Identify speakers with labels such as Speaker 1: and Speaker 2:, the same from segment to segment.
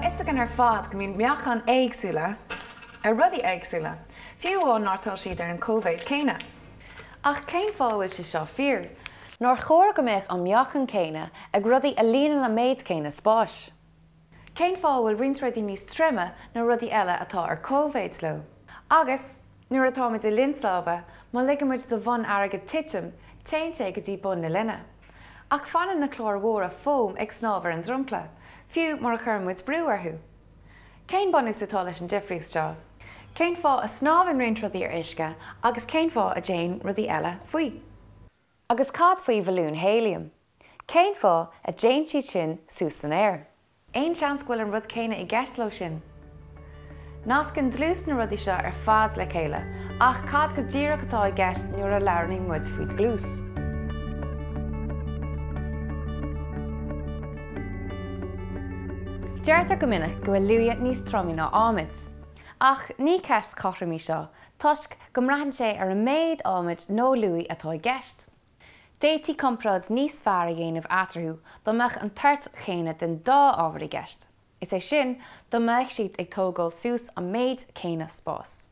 Speaker 1: fhios againn ar fad go mbíonn meáchain éagsúla ar rudaí éagsúla, fiú amháin má tá siad ar an cóimhéid céanna. Ach cén fáth a bhfuil sé seo fíor? Nár chóir go mbeadh an meáchan céanna ag rudaí a líonann an méid céanna spáis? Cén fáth a bhfuil roinnt rudaí níos troime ná rudaí eile atá ar cóimhéid leo? Agus, nuair atáimid i linn snámha, má ligeann muid do bhonn airgid titim, téann sé go dtí bun na linne. Ach fanann na cláir mhóra fóim ag snámh ar an dromchla, fiú mura chuireann muid brú orthu. Cén bunús atá leis an difríocht seo? Cén fáth a snámhann roinnt rudaí ar uisce agus cén fáth a dtéann rudaí eile faoi? Agus cad faoi bhalúin héiliam? Cén fáth a dtéann siad sin suas san aer? Aon seans go bhfuil an rud céanna i gceist leo sin? Nascann dlús na rudaí seo ar fad le chéile, ach cad go díreach atá i gceist nuair a labhraíonn muid faoi dhlús? Deirtear go minic go bhfuil luaidhe níos troime ná adhmad. Ach ní ceist chothrom í seo, toisc go mbraitheann sé ar an méid adhmaid nó luaidhe atá i gceist. D'fhéadfaí comparáid níos fearr a dhéanamh eatarthu dá mbeadh an toirt chéanna den dá ábhar i gceist, is é sin, dá mbeadh siad ag tógáil suas an méid céanna spáis.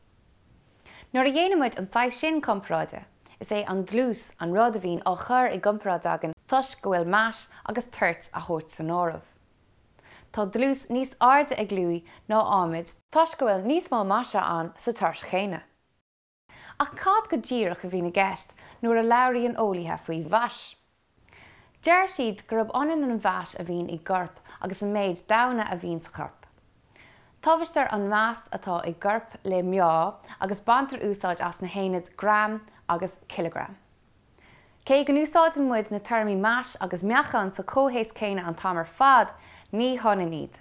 Speaker 1: Nuair a dhéanann muid an saghas sin comparáide, is é an dlús an rud a bhíonn á chur i gcomparáid againn toisc go bhfuil mais agus toirt á thabhairt san áireamh. Tá dlús níos airde ag luaidh ná adhmad toisc go bhfuil níos mó maise ann sa toirt chéanna. Ach cad go díreach a bhíonn i gceist nuair a labhraíonn eolaithe faoi mhais? Deir siad gurb ionann an mhais a bhíonn i gcorp agus an méid damhna a bhíonn sa chorp. Tomhaistear an mais atá i gcorp le meá agus baintear úsáid as na haonaid gram agus cileagram. Cé go n-úsáideann muid na téarmaí mais agus meáchan sa chomhthéacs céanna an t-am ar fad, ní hionann iad.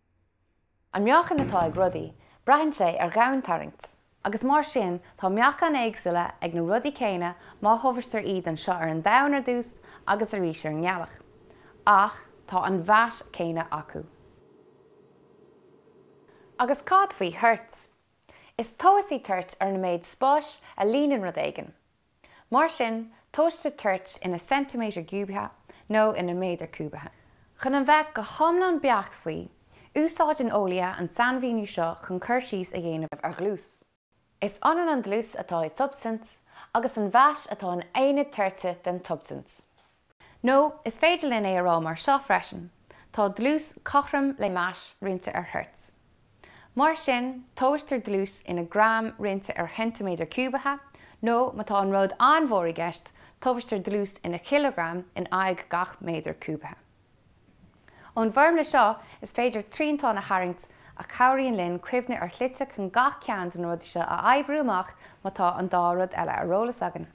Speaker 1: An meáchan atá ag rudaí, braitheann sé ar dhomhantarraingt, agus mar sin tá meáchain éagsúla ag na rudaí céanna má thomhaistear iad anseo ar an Domhan ar dtús agus arís ar an nGealach. Ach tá an mhais chéanna acu. Agus cad faoi thoirt? Is tomhas í toirt ar an méid spáis a líonann rud éigin. Mar sin, tomhaistear toirt ina ceintiméadar ciúbaithe nó ina méadar cúbaithe. Chun a bheith go hiomlán beacht faoi, úsáideann eolaithe an sainmhíniú seo chun cur síos a dhéanamh ar dhlús. Is ionann an dlús atá i tsubstaint agus an mhais atá in aonad toirte den tsubstaint. Nó is féidir linn é a rá mar seo freisin, tá dlús cothrom le mais roinnte ar thoirt. Mar sin, tomhaistear dlús ina gram roinnte ar cheintiméadar ciúbaithe, nó má tá an rud an-mhór i gceist, tomhaistear dlús ina chileagram in aghaidh gach méadar cúbaithe. Ón bhfoirmle seo, is féidir triantán a tharraingt a chabhraíonn linn cuimhneamh ar shlite chun gach ceann de na rudaí seo a oibriú amach má tá an dá rud eile ar eolas againn.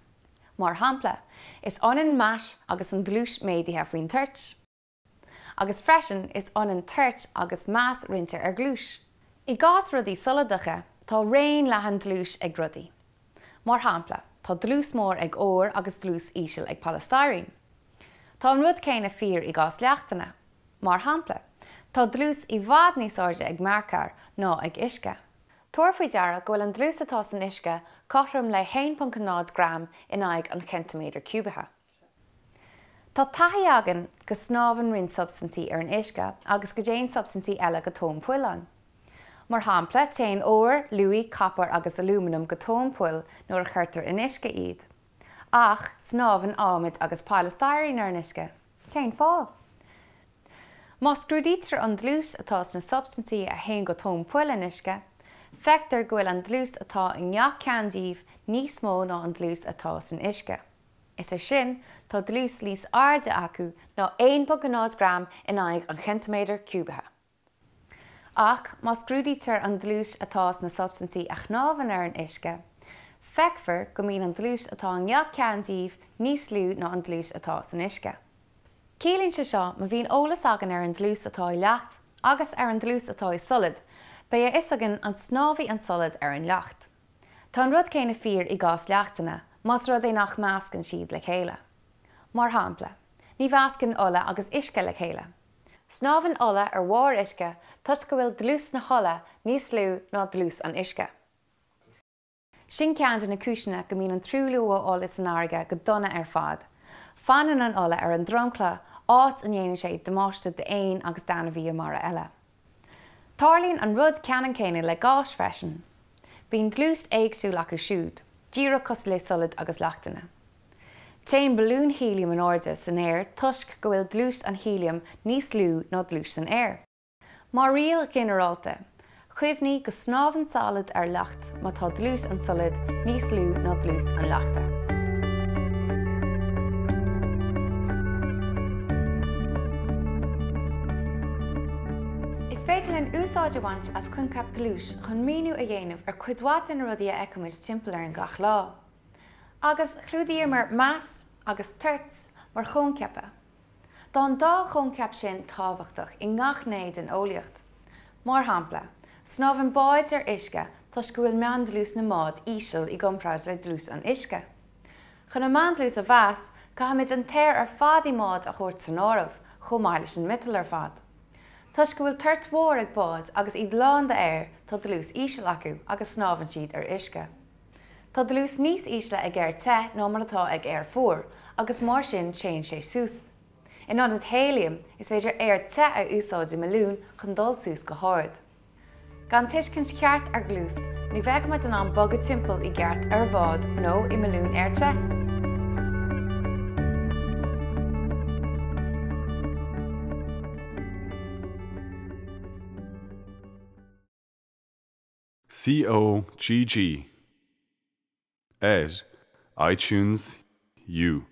Speaker 1: Mar shampla, is ionann mais agus an dlús méadaithe faoin toirt. Agus freisin, is ionann toirt agus mais roinnte ar dhlús. I gcás rudaí soladacha, tá raon leathan dlúis ag rudaí. Mar shampla, tá dlús mór ag ór agus dlús íseal ag polystyrene. Tá an rud céanna fíor i gcás leachtanna. Mar shampla, tá dlús i bhfad níos airde ag mearcair ná ag uisce. Tabhair faoi deara go bhfuil an dlús atá san uisce cothrom le 1.0 gram in aghaidh an cheintiméadair ciúbaithe. Tá taithí againn go snámhann roinnt substaintí ar an uisce agus go dtéann substaintí eile go tóin poill ann. Mar shampla, téann ór, luaidhe, copar agus alúmanam go tóin poill nuair a chuirtear in uisce iad. Ach snámhann adhmad agus polystyrene ar an uisce. Cén fáth? Má scrúdaítear an dlús atá sna substaintí a théann go tóin poill in uisce, feictear go bhfuil an dlús atá i ngach ceann díobh níos mó ná an dlús atá san uisce. Is é sin, tá dlús níos airde acu ná 1.0 gram in aghaidh an cheintiméadair ciúbaithe. Ach má scrúdaítear an dlús atá sna substaintí a shnámhann ar an uisce, feicfear go mbíonn an dlús atá i ngach ceann díobh níos lú ná an dlús atá san uisce. Ciallaíonn sé seo má bhíonn eolas againn ar an dlús atá i leacht agus ar an dlús atá i solad, beidh a fhios againn an snámhfaidh an solad ar an leacht. Tá an rud céanna fíor i gcás leachtanna, más rud é nach meascann siad le chéile. Mar shampla, ní mheascann ola agus uisce le chéile. Snámhann ola ar bharr uisce toisc go bhfuil dlús na hola níos lú ná dlús an uisce. Sin ceann de na cúiseanna go mbíonn an truailliú ó ola san fharraige go dona ar fad. Fanann an ola ar an dromchla, áit a ndéanann sé damáiste d'éin agus d'ainmhithe mara eile. Tarlaíonn an rud ceannann céanna le gáis freisin. Bíonn dlús éagsúil acu siúd, díreach cosúil le solaid agus leachtanna. Téann balúin héiliam in airde san aer toisc go bhfuil dlús an héiliam níos lú ná dlús an aeir. Mar riail ghinearálta, cuimhnigh go snámhann solad ar leacht má tá dlús an tsolaid níos lú ná dlús an leachta. Is féidir linn úsáid a bhaint as coincheap dlúis chun míniú a dhéanamh ar chuid mhaith de na rudaí a fheicimid timpeall orainn gach lá. Agus chlúdaíomar mais agus toirt mar choincheapa. Tá an dá choincheap sin tábhachtach i ngach gné den eolaíocht. Mar shampla, snámhann báid ar uisce toisc go bhfuil meándlús na mbád íseal i gcomparáid le dlús an uisce. Chun an meándlús a mheas, caithfimid an t-aer ar fad i mbád a thabhairt san áireamh, chomh maith leis an miotal ar fad. Toisc go bhfuil toirt mhór ag báid agus iad lán d'aer, tá dlús íseal acu agus snámhann siad ar uisce. Tá dlús níos ísle ag aer te ná mar atá ag aer fuar, agus mar sin téann sé suas. In ionad héiliam, is féidir aer te a úsáid i mbalún chun dul suas go hard. Gan tuiscint cheart ar dhlús, ní bheadh muid in ann bogadh timpeall i gceart ar bhád nó i mbalún aer te.
Speaker 2: COGG ar iTunes U.